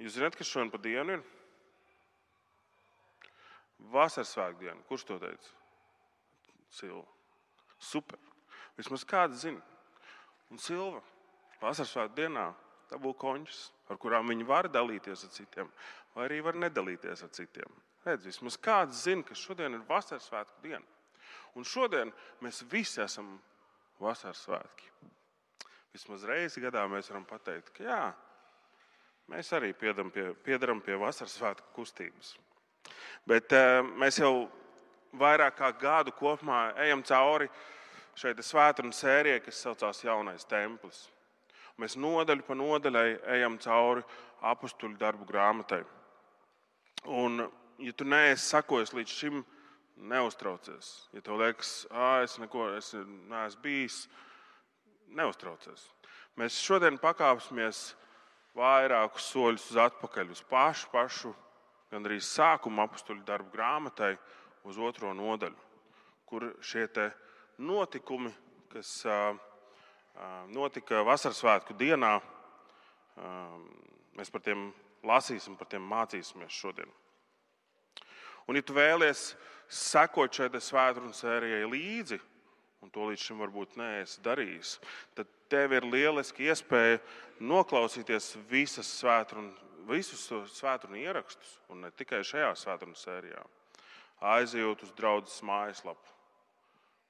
Jūs zināt, kas šodien pa dienu ir? Vasarsvētku diena. Kurš to teica? Silva. Super. Vismaz kāds zina. Un Silva Vasarsvētku dienā dabū končus, ar kurām viņi var dalīties ar citiem, vai arī var nedalīties ar citiem. Redz, vismaz kāds zina, ka šodien ir Vasarsvētku diena. Un šodien mēs visi esam Vasarsvētki. Vismaz reizi gadā mēs varam pateikt, ka jā, mēs arī piedaram pie Vasarsvētku kustības. Bet mēs jau vairāk kā gadu kopumā ejam cauri šeit svētdienu sērijai, kas saucās Jaunais templis. Mēs nodaļu pa nodaļai ejam cauri apustuļu darbu grāmatai. Un, ja tu neesi sakojis līdz šim, neuztraucies. Ja tev liekas, es neesmu bijis, neuztraucies. Mēs šodien pakāpsimies vairākus soļus uz atpakaļ, uz pašu, gandrīz sākuma apustuļu darbu grāmatai, uz 2. nodaļu, kur šie te notikumi, kas notika Vasarsvētku dienā, mēs par tiem lasīsim, par tiem mācīsimies šodien. Un, ja tu vēlies sekot šai svētdienu sērijai līdzi, un to līdz šim varbūt neesi darījis, tad tev ir lieliski iespēja noklausīties visus svētdienu ierakstus, un ne tikai šajā svētdienu sērijā. Aizejot uz draudzes mājaslapu.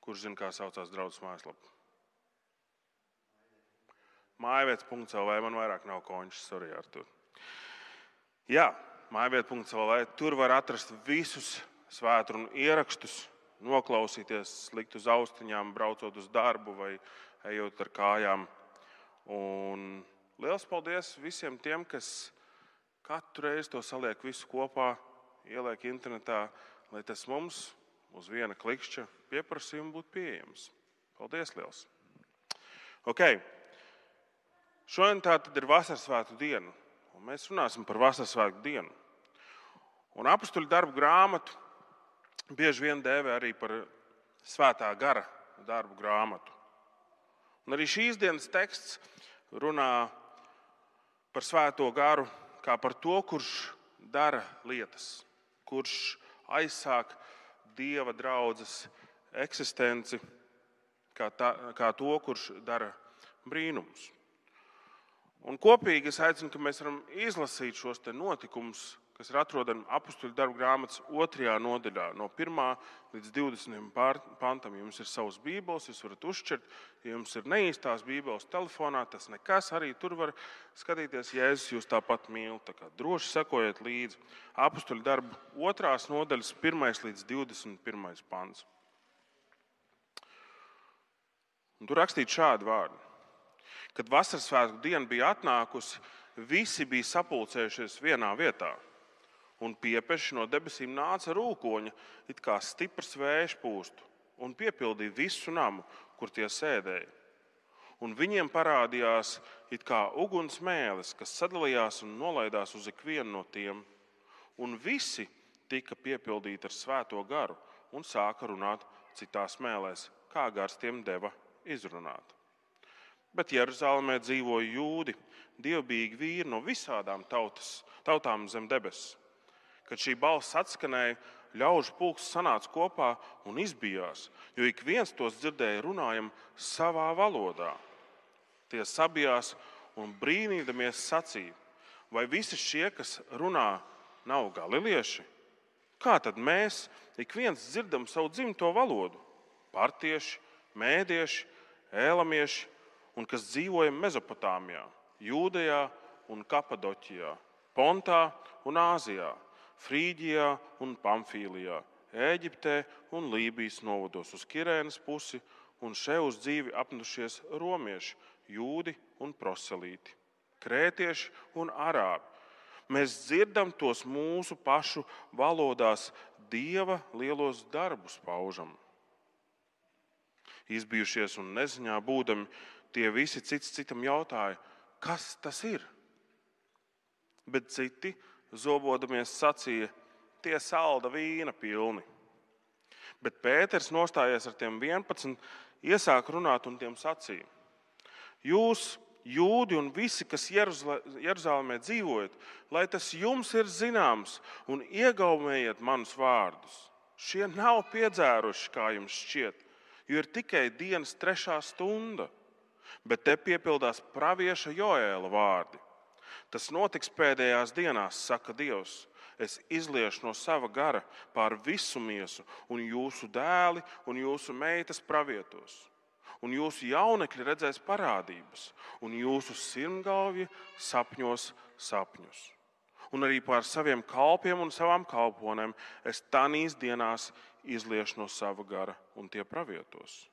Kurš zina, kā saucās draudzes mājaslapa? Mājvietas.lv, man vairāk nav končas, sorry, Artur. Jā, mājvieta.lv, tur var atrast visus svētdienu ierakstus, noklausīties, likt uz austiņām, braucot uz darbu vai ejot ar kājām. Un liels paldies visiem tiem, kas katru reizi to saliek visu kopā, ieliek internetā, lai tas mums uz viena klikšķa pieprasījuma būtu pieejams. Paldies liels! Ok. Šodien tā tad ir Vasarsvētku diena, un mēs runāsim par Vasarsvētku dienu. Un apustuļu darbu grāmatu bieži vien dēvē arī par Svētā gara darbu grāmatu. Un arī šīs dienas teksts runā par Svēto garu kā par to, kurš dara lietas, kurš aizsāk Dieva draudzes eksistenci, kā to, kurš dara brīnumus. Un kopīgi es aicinu, ka mēs varam izlasīt šos te notikumus, kas ir atrodami apustuļu darbu grāmatas 2. nodaļā, no 1. līdz 20. pantam. Ja jums ir savas bībeles, jūs varat uzšķirt. Ja jums ir neīstās bībeles telefonā, tas nekas, arī tur var skatīties. Jēzus jūs tāpat mīl, tā kā droši sekojiet līdzi. Apustuļu darbu 2. nodaļas 1. līdz 21. pants. Un tur rakstīt šādi vārdi. Kad Vasarsvētku diena bija atnākusi, visi bija sapulcējušies vienā vietā. Un piepeši no debesīm nāca rūkoņa, it kā stiprs vējš pūstu, un piepildīja visu namu, kur tie sēdēja. Un viņiem parādījās it kā uguns mēlis, kas sadalījās un nolaidās uz ikvienu no tiem. Un visi tika piepildīti ar Svēto garu un sāka runāt citās mēlēs, kā gars tiem deva izrunāt. Bet Jeruzalemē dzīvoja jūdi, dievbijīgi vīri no visādām tautām zem debesis. Kad šī balss atskanēja, ļaužu pulks sanāca kopā un izbijās, jo ik viens tos dzirdēja runājam savā valodā. Tie sabijās un brīnīdamies sacīja, vai visi šie, kas runā, nav galilieši? Kā tad mēs ik viens dzirdam savu dzimto valodu? Partieši, mēdieši, ēlamieši, un kas dzīvoja Mezopotāmijā, Jūdejā un Kapadoķijā, Pontā un Āzijā, Frīģijā un Pamfīlijā, Ēģiptē un Lībijas novados uz Kirēnas pusi, un še uz dzīvi apmetušies romieši, jūdi un proselīti, krētieši un arābi. Mēs dzirdam tos mūsu pašu valodās Dieva lielos darbus paužam. Izbijušies un neziņā būdami, tie visi cits citam jautāja, kas tas ir? Bet citi, zobodamies, sacīja, tie salda vīna pilni. Bet Pēters, nostājies ar tiem 11, iesāk runāt un tiem sacīja. Jūs jūdi un visi, kas Jeruzalemē dzīvojat, lai tas jums ir zināms un iegaumējiet manus vārdus. Šie nav piedzēruši, kā jums šķiet, jo ir tikai dienas 3. stunda, bet te piepildās pravieša Joēla vārdi. Tas notiks pēdējās dienās, saka Dievs. Es izliešu no sava gara pār visu miesu, un jūsu dēli un jūsu meitas pravietos. Un jūsu jaunekļi redzēs parādības, un jūsu sirmgalvji sapņos sapņus. Un arī pār saviem kalpiem un savām kalponēm es tanīs dienās izliešu no sava gara, un tie pravietos.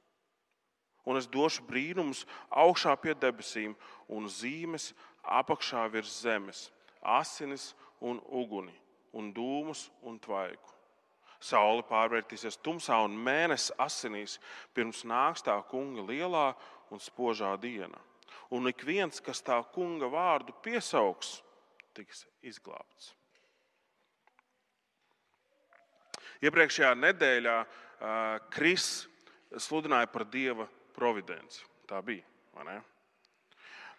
Un es došu brīnumus augšā pie debesīm un zīmes apakšā virs zemes, asinis un uguni, un dūmus un tvaiku. Saule pārvērtīsies tumsā un mēnesis asinīs, pirms nāks tā kunga lielā un spožā diena. Un ik viens, kas tā kunga vārdu piesauks, tiks izglābts. Iepriekšējā nedēļā Kris sludināja par Dieva providenci. Tā bija, vai ne?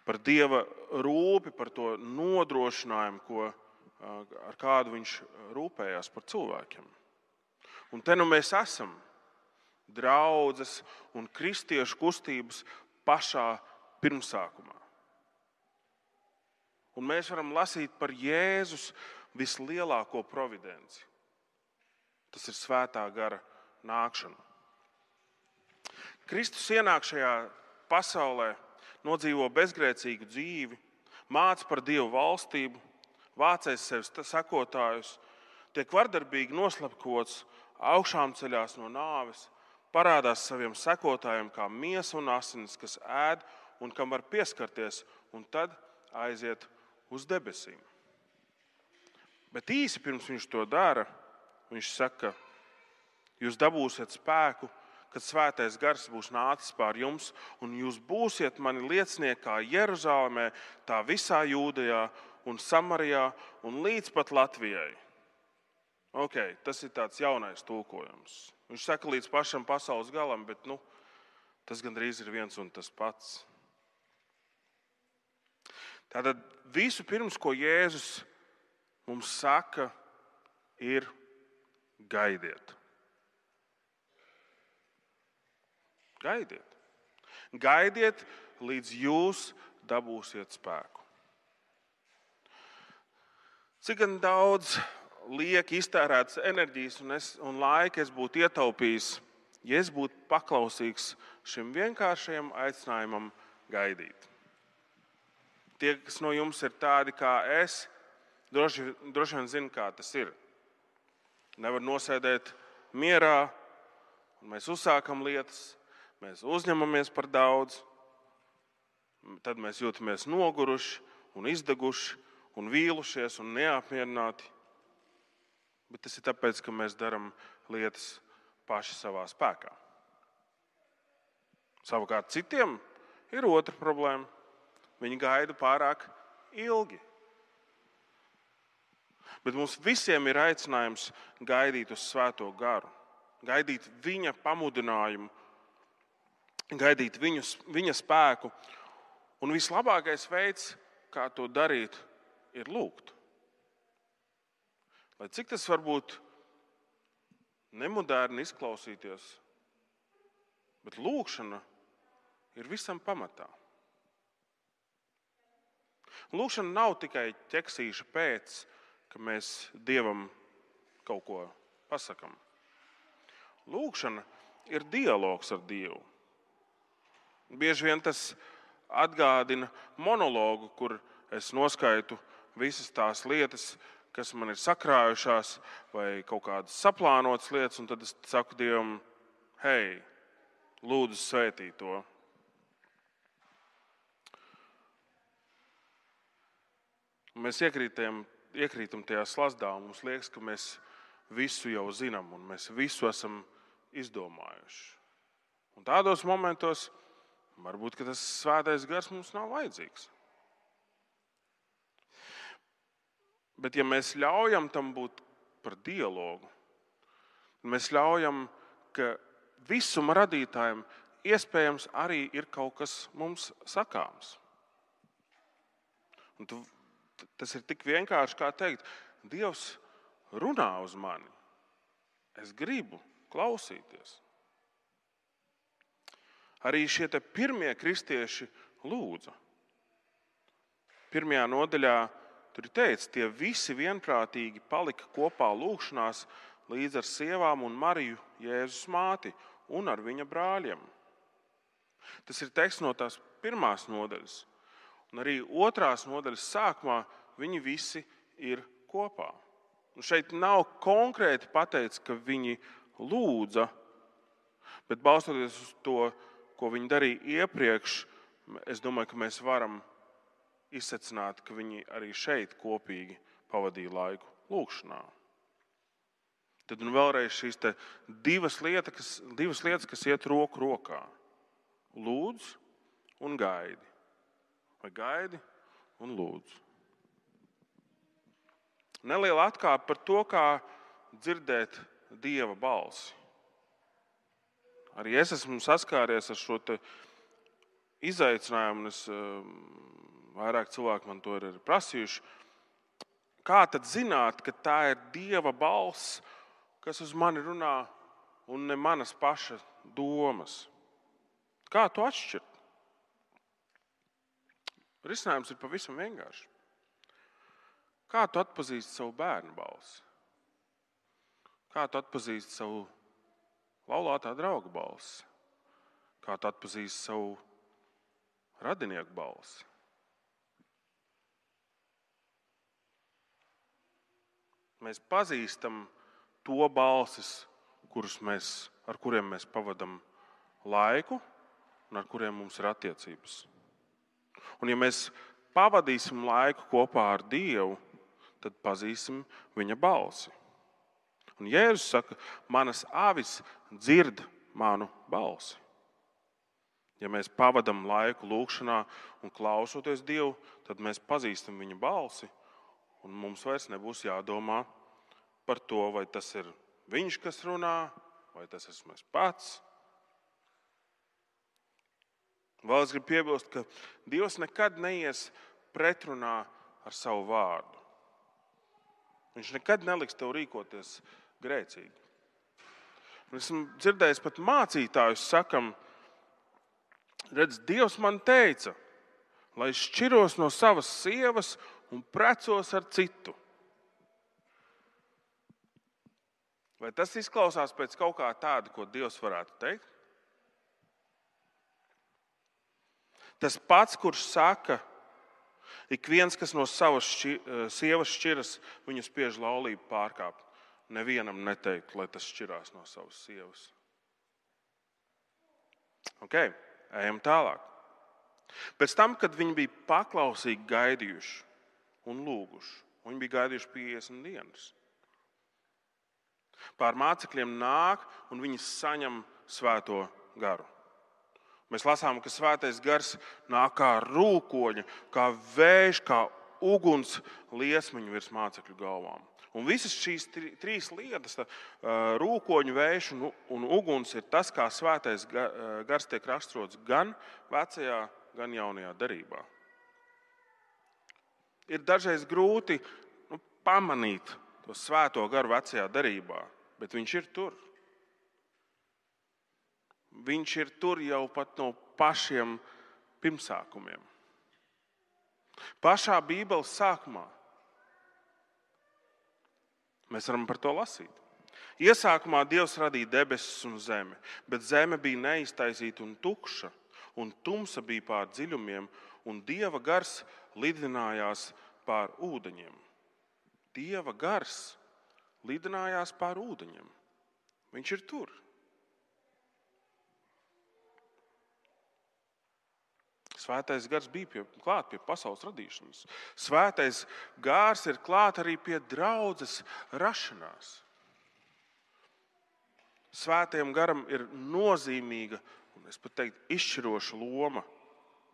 Par Dieva rūpi, par to nodrošinājumu, ar kādu viņš rūpējās par cilvēkiem. Un te nu mēs esam draudzes un kristiešu kustības pašā pirmsākumā. Un mēs varam lasīt par Jēzus vislielāko providenci. Tas ir svētā gara nākšana. Kristus ienāk šajā pasaulē, nodzīvo bezgrēcīgu dzīvi, māca par Dievu valstību, vācēs sev sekotājus, tiek vardarbīgi noslapkots, augšām ceļās no nāves, parādās saviem sekotājiem kā miesa un asinis, kas ēd un kam var pieskarties, un tad aiziet uz debesīm. Bet īsi pirms viņš to dara, viņš saka, jūs dabūsiet spēku, kad svētais gars būs nācis pār jums, un jūs būsiet mani liecinieki kā Jeruzalemē, tā visā Jūdejā un Samarijā un līdz pat Latvijai. Tas ir tāds jaunais tulkojums. Viņš saka līdz pašam pasaules galam, bet tas gandrīz ir viens un tas pats. Tātad visu pirms, ko Jēzus mums saka, ir gaidiet. Gaidiet. Gaidiet, līdz jūs dabūsiet spēku. Cik gan daudz liek iztērētas enerģijas un laika es būtu ietaupījis, ja es būtu paklausīgs šim vienkāršajam aicinājumam gaidīt. Tie, kas no jums ir tādi kā es, droši vien zina, kā tas ir. Nevar nosēdēt mierā, un mēs uzsākam lietas, mēs uzņemamies par daudz, tad mēs jūtamies noguruši un izdeguši un vīlušies un neapmierināti. Bet tas ir tāpēc, ka mēs darām lietas paši savā spēkā. Savukārt citiem ir otra problēma. Viņi gaida pārāk ilgi. Bet mums visiem ir aicinājums gaidīt uz svēto garu, gaidīt viņa pamudinājumu, gaidīt viņa spēku. Un vislabākais veids, kā to darīt, ir lūgt. Lai cik tas varbūt nemoderni izklausīties, bet lūgšana ir visam pamatā. Lūgšana nav tikai ķeksīša pēc, ka mēs Dievam kaut ko pasakam. Lūgšana ir dialogs ar Dievu. Bieži vien tas atgādina monologu, kur es noskaitu visas tās lietas, kas man ir sakrājušās, vai kaut kādas saplānotas lietas, un tad es saku Dievam, hei, lūdzu svētī to. Mēs iekrītam tajā slazdā, un mums liekas, ka mēs visu jau zinām, un mēs visu esam izdomājuši. Un tādos momentos varbūt, ka tas svētais gars mums nav vajadzīgs. Bet ja mēs ļaujam tam būt par dialogu, mēs ļaujam, ka visuma radītājiem iespējams arī ir kaut kas mums sakāms. Tas ir tik vienkārši, kā teikt, Dievs runā uz mani. Es gribu klausīties. Arī šie pirmie kristieši lūdza. 1. nodaļā tur ir teikts, tie visi vienprātīgi palika kopā lūgšanās līdz ar sievām un Mariju, Jēzus māti, un ar viņa brāļiem. Tas ir teksts no tās 1. nodaļas. Un arī 2. nodaļas sākumā viņi visi ir kopā. Un šeit nav konkrēti pateikts, ka viņi lūdza, bet balstoties uz to, ko viņi darīja iepriekš, es domāju, ka mēs varam izsecināt, ka viņi arī šeit kopīgi pavadīja laiku lūgšanā. Tad un vēlreiz šīs divas lietas, kas iet roku rokā. Lūdz un gaidi. Vai gaidi un lūdz. Neliela atkāpe par to, kā dzirdēt Dieva balsi. Arī es esmu saskāries ar šo izaicinājumu, un vairāk cilvēki man to ir prasījuši. Kā tad zināt, ka tā ir Dieva balss, kas uz mani runā, un ne manas paša domas? Kā to atšķirt? Risinājums ir pavisam vienkārši. Kā tu atpazīsti savu bērnu balsi? Kā tu atpazīsti savu laulātā drauga balsi? Kā tu atpazīsti savu radinieku balsi? Mēs pazīstam to balsis, ar kuriem mēs pavadam laiku un ar kuriem mums ir attiecības. Un ja mēs pavadīsim laiku kopā ar Dievu, tad pazīsim viņa balsi. Un Jēzus saka, manas avis dzird manu balsi. Ja mēs pavadam laiku lūgšanā un klausoties Dievu, tad mēs pazīstam viņa balsi, un mums vairs nebūs jādomā par to, vai tas ir viņš, kas runā, vai tas esmu es pats. Vēl es gribu piebilst, ka Dievs nekad neies pretrunā ar savu vārdu. Viņš nekad neliks tev rīkoties grēcīgi. Esmu dzirdējis pat mācītājus sakam, redz, Dievs man teica, lai es šķiros no savas sievas un precos ar citu. Vai tas izklausās pēc kaut kā tāda, ko Dievs varētu teikt? Tas pats, kurš saka, ik viens, kas no savas sievas šķiras, viņu spiež laulību pārkāpt. Nevienam neteikt, lai tas šķirās no savas sievas. Ejam tālāk. Pēc tam, kad viņi bija paklausīgi gaidījuši un lūguši, viņi bija gaidījuši 50 dienas. Pār mācekļiem nāk un viņi saņem svēto garu. Mēs lasām, ka svētais gars nāk kā rūkoņa, kā vējš, kā uguns liesmiņu virs mācekļu galvām. Un visas šīs trīs lietas, rūkoņu, vējš un uguns, ir tas, kā svētais gars tiek raksturots gan vecajā, gan jaunajā derībā. Ir dažreiz grūti pamanīt to svēto garu vecajā derībā, bet viņš ir tur. Viņš ir tur jau pat no pašiem pirmsākumiem. Pašā Bībeles sākumā mēs varam par to lasīt. Iesākumā Dievs radīja debesis un zemi, bet zeme bija neiztaisīta un tukša, un tumsa bija pār dziļumiem, un Dieva gars lidinājās pār ūdeņiem. Dieva gars lidinājās pār ūdeņiem. Viņš ir tur. Svētais gars bija klāt pie pasaules radīšanas. Svētais gars ir klāt arī pie draudzes rašanās. Svētajam garam ir nozīmīga, un es pat teiktu, izšķiroša loma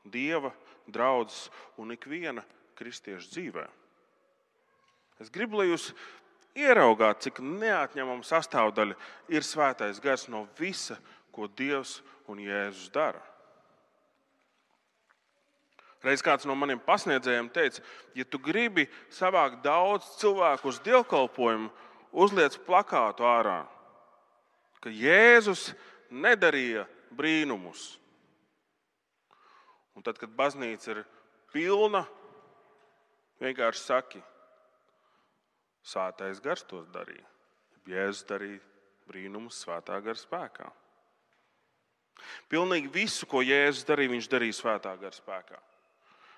Dieva, draudzes un ikviena kristieša dzīvē. Es gribu, lai jūs ieraugāt, cik neatņemama sastāvdaļa ir svētais gars no visa, ko Dievs un Jēzus dara. Reiz kāds no maniem pasniedzējiem teica, ja tu gribi savākt daudz cilvēku uz dievkalpojumu, uzliec plakātu ārā, ka Jēzus nedarīja brīnumus. Un tad, kad baznīca ir pilna, vienkārši saki, Svētais Gars tos darīja. Jēzus darīja brīnumus Svētā Gara spēkā. Pilnīgi visu, ko Jēzus darīja, viņš darīja Svētā Gara spēkā.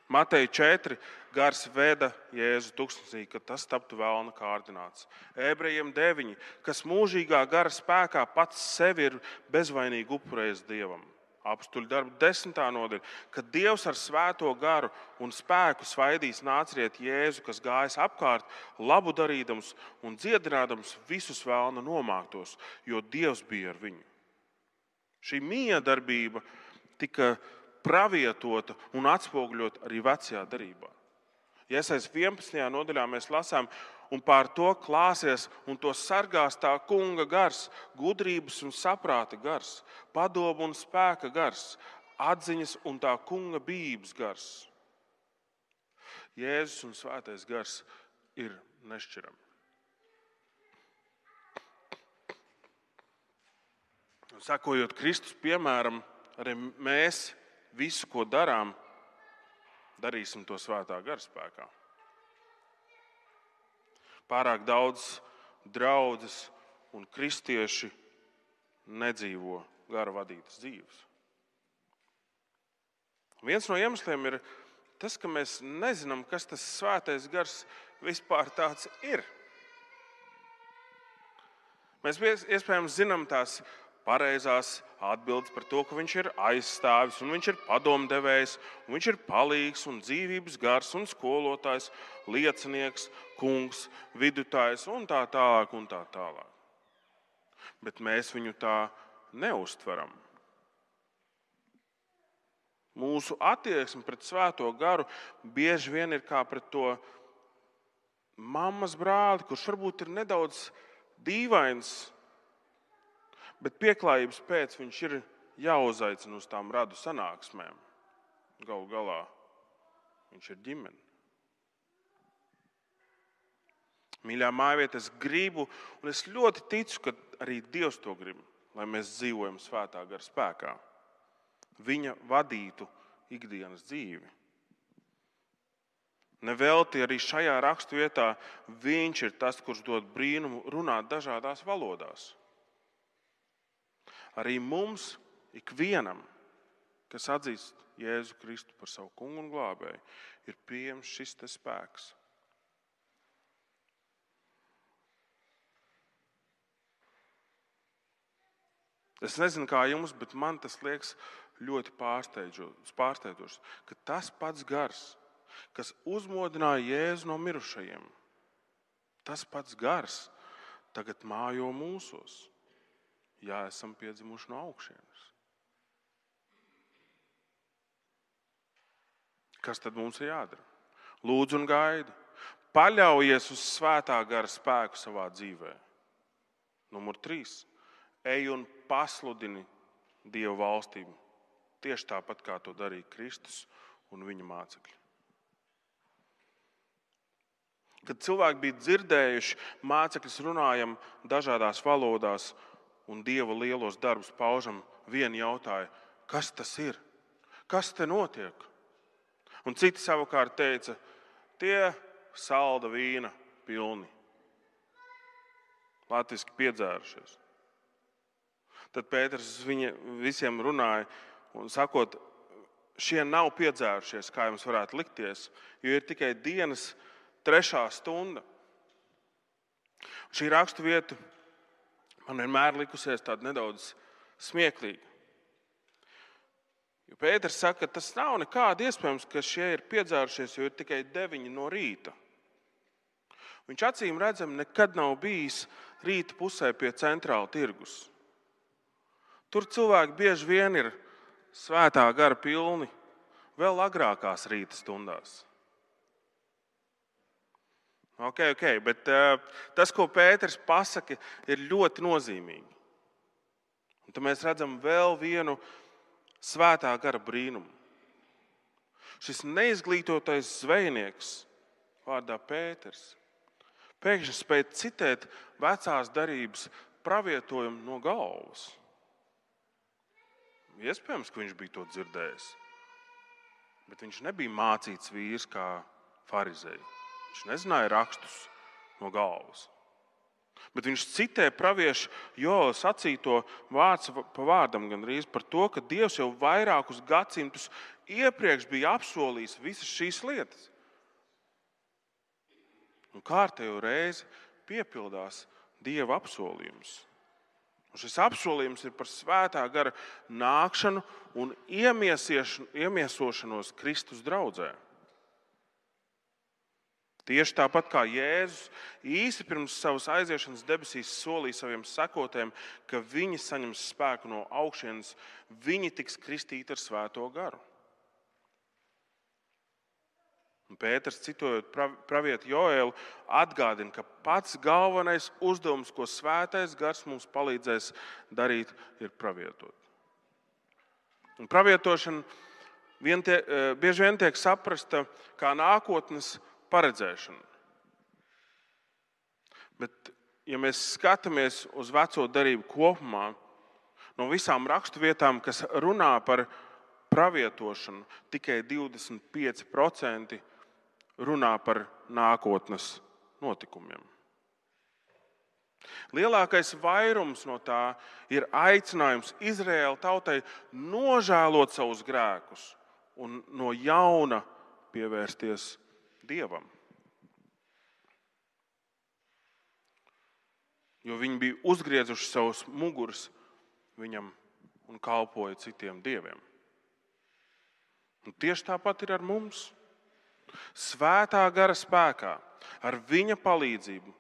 Mateja 4. Gars veda Jēzu tuksnesī, kad tas taptu vēlna kārdināts. Ebrejiem 9. Kas mūžīgā gara spēkā pats sevi ir bezvainīgi upurējis Dievam. Apstuļu darbu 10. nodaļa, kad Dievs ar svēto garu un spēku svaidīs nāciet Jēzu, kas gājas apkārt, labu darīdams un dziedinādams visus vēlna nomāktos, jo Dievs bija ar viņu. Šī miedarbība tika pravietota un atspoguļot arī vecajā darbā. Iesaistās 11. nodaļā mēs lasām, un pār to klāsies un to sargās tā kunga gars, gudrības un saprāta gars, padomu un spēka gars, atziņas un tā kunga bijības gars. Jēzus un Svētais Gars ir nešķirami. Sekojot Kristus piemēram, arī mēs visu, ko darām, darīsim to Svētā Gara spēkā. Pārāk daudz draudzes un kristieši nedzīvo gara vadītas dzīves. Viens no iemesliem ir tas, ka mēs nezinām, kas tas Svētais Gars vispār tāds ir. Mēs iespējams zinām tās pareizās atbildes par to, ka viņš ir aizstāvis, un viņš ir padomdevējs, un viņš ir palīgs, un dzīvības gars, un skolotājs, liecinieks, kungs, vidutājs, un tā tālāk, un tā tālāk. Bet mēs viņu tā neuztveram. Mūsu attieksme pret Svēto Garu bieži vien ir kā pret to mammas brāli, kurš varbūt ir nedaudz dīvains, bet pieklājības pēc viņš ir jāuzaicina uz tām radu sanāksmēm. Galu galā viņš ir ģimene. Mīļā mājvieta, es gribu, un es ļoti ticu, ka arī Dievs to grib, lai mēs dzīvojam Svētā Gara spēkā. Viņa vadītu ikdienas dzīvi. Nevelti arī šajā raksturvietā viņš ir tas, kurš dod brīnumu runāt dažādās valodās. Arī mums, ikvienam, kas atzīst Jēzu Kristu par savu kungu un glābēju, ir pieejams šis te spēks. Es nezinu, kā jums, bet man tas liekas ļoti pārsteidzoši, ka tas pats gars, kas uzmodināja Jēzu no mirušajiem, tas pats gars tagad mājo mūsos. Jā, esam piedzimuši no augšienes. Kas tad mums ir jādara? Lūdzu un gaidi. Paļaujies uz Svētā Gara spēku savā dzīvē. Numur 3. Ej un pasludini Dieva valstību. Tieši tāpat, kā to darīja Kristus un viņa mācekļi. Kad cilvēki bija dzirdējuši, mācekļus runājam dažādās valodās, un Dieva lielos darbus paužam, vieni jautāja, kas tas ir? Kas te notiek? Un citi savukārt teica, tie salda vīna pilni. Latviski piedzērušies. Tad Pēters visiem runāja un sakot, šie nav piedzērušies, kā jums varētu likties, jo ir tikai dienas 3. stunda. Šī raksturvieta man vienmēr likusies tāda nedaudz smieklīga. Jo Pēters saka, ka tas nav nekādi iespējams, ka šie ir piedzērušies, jo ir tikai 9 no rīta. Viņš acīm redzam nekad nav bijis rīta pusē pie centrāla tirgus. Tur cilvēki bieži vien ir Svētā Gara pilni vēl agrākās rīta stundās. Ok, bet tas, ko Pēters pasaka, ir ļoti nozīmīgi. Un tad mēs redzam vēl vienu Svētā Gara brīnumu. Šis neizglītotais zvejnieks vārdā Pēters pēkšņi spēja citēt vecās derības pravietojumu no galvas. Iespējams, ka viņš bija to dzirdējis, bet viņš nebija mācīts vīrs kā farizeji. Viņš nezināja rakstus no galvas. Bet viņš citē praviešu Joela sacīto vārds pa vārdam gandrīz par to, ka Dievs jau vairākus gadsimtus iepriekš bija apsolījis visas šīs lietas. Un kārtējo reizi piepildās Dieva apsolījums. Un šis apsolījums ir par svētā gara nākšanu un iemiesošanos Kristus draudzē. Tieši tāpat kā Jēzus īsi pirms savas aiziešanas debesīs solīja saviem sekotājiem, ka viņi saņems spēku no augšienes, viņi tiks kristīti ar svēto garu. Un Pēters, citojot pravietu Joēlu, atgādina, ka pats galvenais uzdevums, ko svētais gars mums palīdzēs darīt, ir pravietot. Un pravietošana bieži vien tiek saprasta kā nākotnes paredzēšana. Bet, ja mēs skatāmies uz veco derību kopumā, no visām raksturvietām, kas runā par pravietošanu, tikai 25% runā par nākotnes notikumiem. Lielākais vairums no tā ir aicinājums Izraēla tautai nožēlot savus grēkus un no jauna pievērsties Dievam. Jo viņi bija uzgriezuši savus muguras viņam un kalpoja citiem dieviem. Un tieši tāpat ir ar mums. Svētā gara spēkā, ar viņa palīdzību,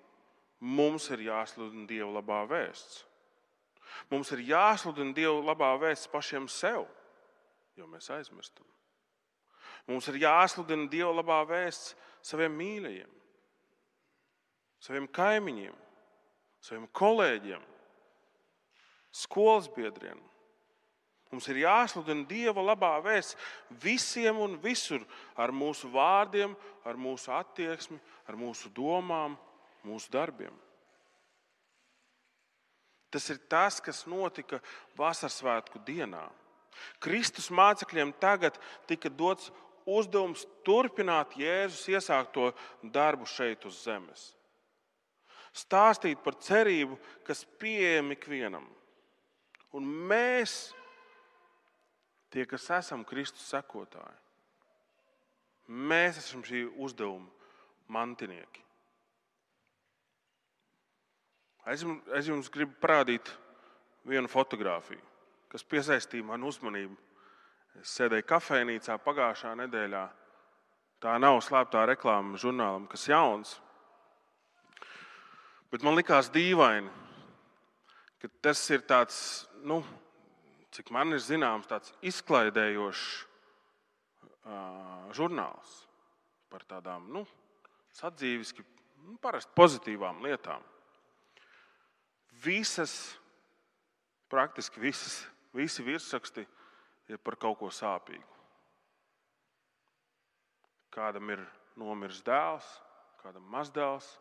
mums ir jāsludina Dieva labā vēsts. Mums ir jāsludina Dieva labā vēsts pašiem sev, jo mēs aizmirstam. Mums ir jāsludina Dieva labā vēsts saviem mīļajiem, saviem kaimiņiem, saviem kolēģiem, skolas biedriem. Mums ir jāsludina Dieva labā vēsts visiem un visur ar mūsu vārdiem, ar mūsu attieksmi, ar mūsu domām, mūsu darbiem. Tas ir tas, kas notika Vasarsvētku dienā. Kristus mācekļiem tagad tika dots uzdevums turpināt Jēzus iesākto darbu šeit uz zemes. Stāstīt par cerību, kas pieejama ikvienam. Un mēs, tie, kas esam Kristus sekotāji, mēs esam šī uzdevuma mantinieki. Es jums gribu parādīt vienu fotogrāfiju, kas piesaistīja manu uzmanību. Es sēdēju kafejnīcā pagājušā nedēļā. Tā nav slēptā reklāma žurnālam, kas jauns. Bet man likās dīvaini, ka tas ir tāds, cik man ir zināms, tāds izklaidējošs žurnāls par tādām, sadzīviski, parasti pozitīvām lietām. Praktiski visi virsraksti ir par kaut ko sāpīgu. Kādam ir nomiris dēls, kādam mazdēls,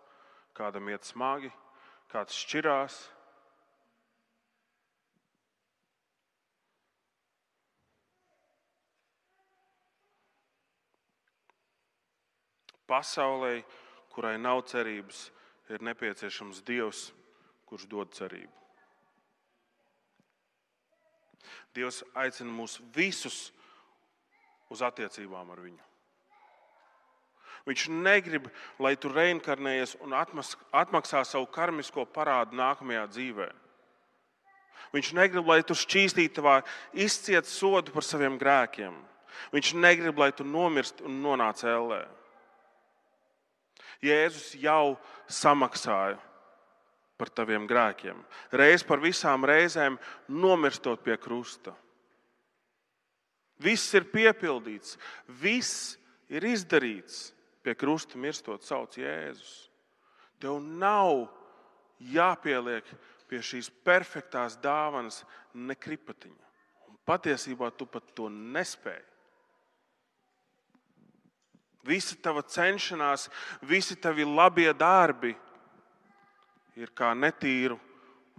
kādam iet smagi, kāds šķirās. Pasaulē, kurai nav cerības, ir nepieciešams Dievs, kurš dod cerību. Dievs aicina mūs visus uz attiecībām ar viņu. Viņš negrib, lai tu reinkarnējies un atmaksā savu karmisko parādu nākamajā dzīvē. Viņš negrib, lai tu šķīstītavā izciet sodu par saviem grēkiem. Viņš negrib, lai tu nomirst un nonāc ellē. Jēzus jau samaksāja par taviem grēkiem. Reiz par visām reizēm nomirstot pie krusta. Viss ir piepildīts, viss ir izdarīts. Pie krusta mirstot sauc Jēzus. Tev nav jāpieliek pie šīs perfektās dāvanas ne kripatiņa. Un patiesībā tu pat to nespēji. Visa tava cenšanās, visi tavi labie darbi ir kā netīru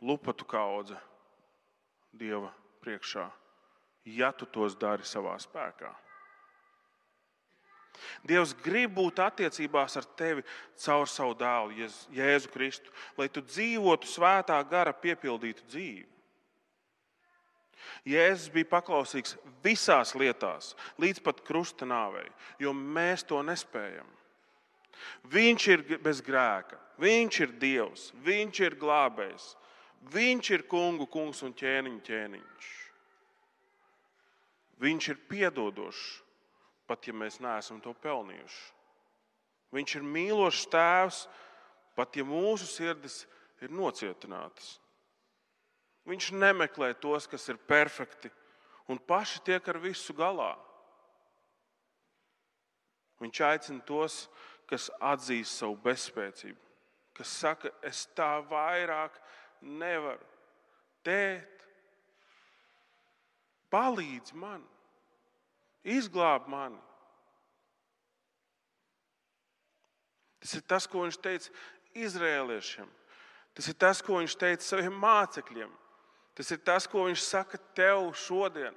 lupatu kaudze Dieva priekšā, ja tu tos dari savā spēkā. Dievs grib būt attiecībās ar tevi caur savu dēlu, Jēzu Kristu, lai tu dzīvotu svētā gara piepildītu dzīvi. Jēzus bija paklausīgs visās lietās, līdz pat krusta nāvei, jo mēs to nespējam. Viņš ir bez grēka, viņš ir Dievs, viņš ir glābējs, viņš ir kungu kungs un ķēniņu ķēniņš. Viņš ir piedodošs, pat ja mēs neesam to pelnījuši. Viņš ir mīlošs tēvs, pat ja mūsu sirdis ir nocietinātas. Viņš nemeklē tos, kas ir perfekti un paši tiek ar visu galā. Viņš aicina tos, kas atzīst savu bezspēcību, kas saka, es tā vairāk nevaru. Tēt, palīdz man, izglāb mani. Tas ir tas, ko viņš teica izrēliešiem. Tas ir tas, ko viņš teica saviem mācekļiem. Tas ir tas, ko viņš saka tev šodien.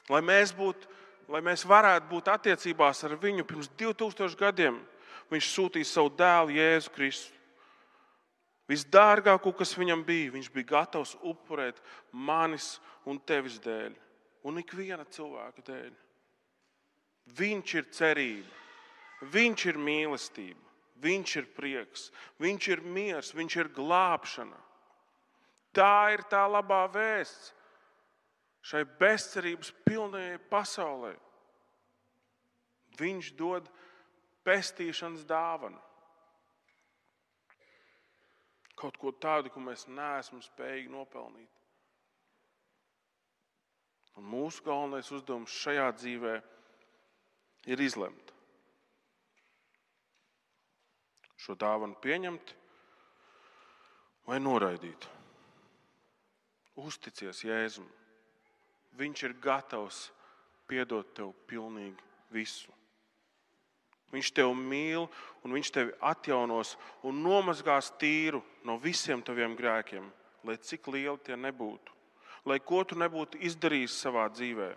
Lai mēs varētu būt attiecībās ar viņu pirms 2000 gadiem, viņš sūtīja savu dēlu Jēzu Kristu. Visdārgāko, kas viņam bija, viņš bija gatavs upurēt manis un tevis dēļ, un ikviena cilvēka dēļ. Viņš ir cerība, viņš ir mīlestība, viņš ir prieks, viņš ir miers, viņš ir glābšana. Tā ir tā labā vēsts šai bezcerības pilnajai pasaulē. Viņš dod pestīšanas dāvanu. Kaut ko tādu, ko mēs neesam spējīgi nopelnīt. Un mūsu galvenais uzdevums šajā dzīvē ir izlemt. Šo dāvanu pieņemt vai noraidīt. Uzticies Jēzum. Viņš ir gatavs piedot tev pilnīgi visu. Viņš tevi mīl un viņš tevi atjaunos un nomazgās tīru no visiem taviem grēkiem, lai cik lieli tie nebūtu. Lai ko tu nebūtu izdarījis savā dzīvē.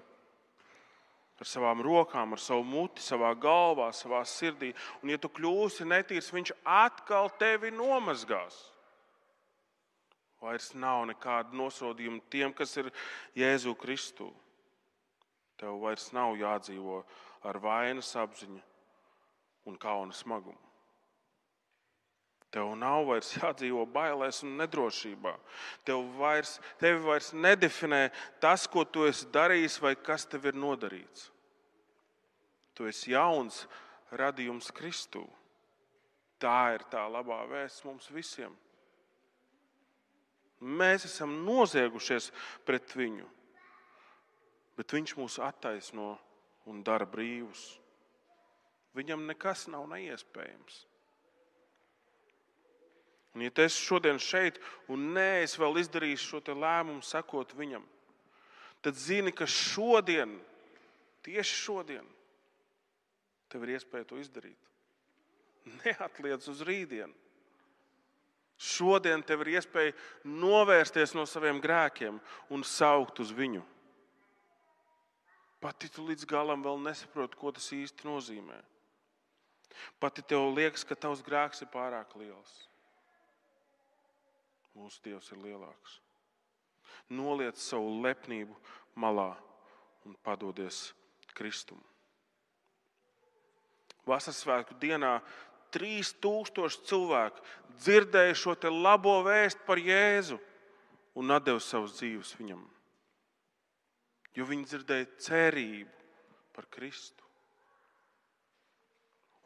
Ar savām rokām, ar savu muti, savā galvā, savā sirdī. Un ja tu kļūsi netīrs, viņš atkal tevi nomazgās. Vairs nav nekāda nosodījuma tiem, kas ir Jēzu Kristu. Tev vairs nav jādzīvo ar vainas apziņu un kauna smagumu. Tev nav vairs jādzīvo bailēs un nedrošībā. Tevi vairs nedefinē tas, ko tu esi darījis vai kas tev ir nodarīts. Tu esi jauns radījums Kristū. Tā ir tā labā vēsts mums visiem. Mēs esam noziegušies pret viņu, bet viņš mūs attaisno un dara brīvus. Viņam nekas nav neiespējams. Un ja tu esi šodien šeit un neesi vēl izdarījis šo te lēmumu sekot viņam, tad zini, ka šodien, tieši šodien, tev ir iespēja to izdarīt. Neatliec uz rītdienu. Šodien tev ir iespēja novērsties no saviem grēkiem un saukt uz viņu. Pat ja tu līdz galam vēl nesaproti, ko tas īsti nozīmē. Pat ja tev liekas, ka tavs grēks ir pārāk liels. Mūsu Dievs ir lielāks. Noliec savu lepnību malā un padodies Kristum. Vasaras svētku dienā 3000 cilvēku dzirdēja šo te labo vēstu par Jēzu un atdeva savus dzīves viņam. Jo viņi dzirdēja cerību par Kristu.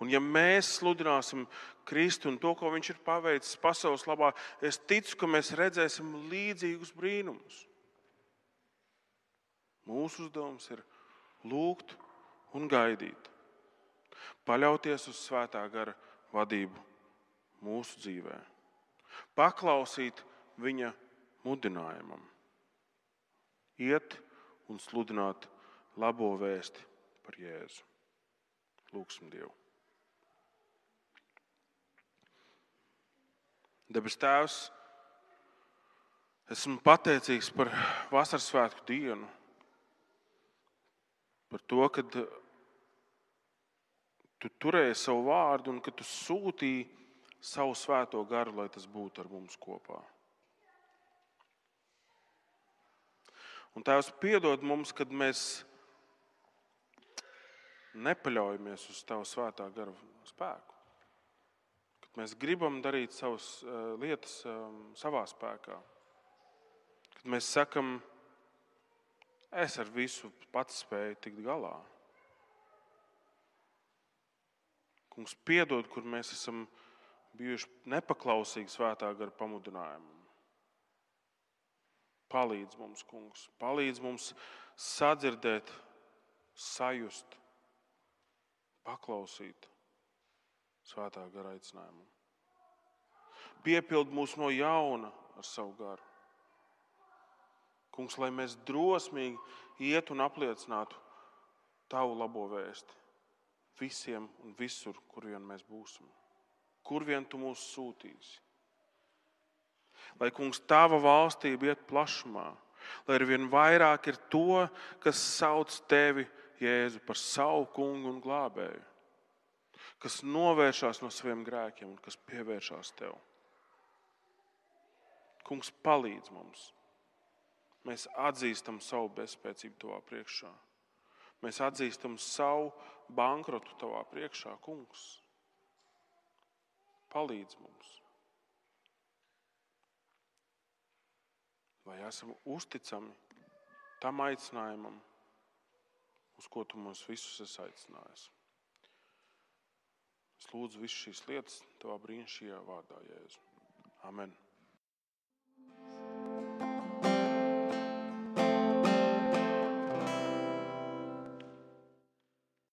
Un ja mēs sludināsim Kristu un to, ko viņš ir paveicis pasaules labā, es ticu, ka mēs redzēsim līdzīgus brīnumus. Mūsu uzdevums ir lūgt un gaidīt. Paļauties uz svētā gara vadību mūsu dzīvē. Paklausīt viņa mudinājumam. Iet un sludināt labo vēsti par Jēzu. Lūgsim Dievu. Debes Tēvs, esmu pateicīgs par vasaras svētku dienu, par to, ka tu turēji savu vārdu un ka tu sūtīji savu svēto garu, lai tas būtu ar mums kopā. Un Tēvs, piedod mums, kad mēs nepaļaujamies uz Tavu svētā gara spēku. Kad mēs gribam darīt savas lietas savā spēkā. Kad mēs sakam, es ar visu pats spēju tikt galā. Kungs, piedod, kur mēs esam bijuši nepaklausīgi svētā gara pamudinājumam. Palīdz mums, Kungs, palīdz mums sadzirdēt, sajust, paklausīt svētā gara aicinājumam. Piepild mūs no jauna ar savu garu. Kungs, lai mēs drosmīgi iet un apliecinātu Tavu labo vēsti visiem un visur, kur vien mēs būsim. Kur vien Tu mūs sūtīsi. Lai, Kungs, Tava valstība iet plašumā, lai arvien vairāk ir to, kas sauc Tevi, Jēzu, par savu kungu un glābēju, kas novēršās no saviem grēkiem un kas pievēršās Tev. Kungs, palīdz mums. Mēs atzīstam savu bezspēcību Tavā priekšā. Mēs atzīstam savu bankrotu Tavā priekšā, Kungs. Palīdz mums. Lai esam uzticami tam aicinājumam, uz ko Tu mūs visus esi aicinājis. Es lūdzu visu šīs lietas Tavā brīnišķīgajā vārdā, Jēzu. Amen.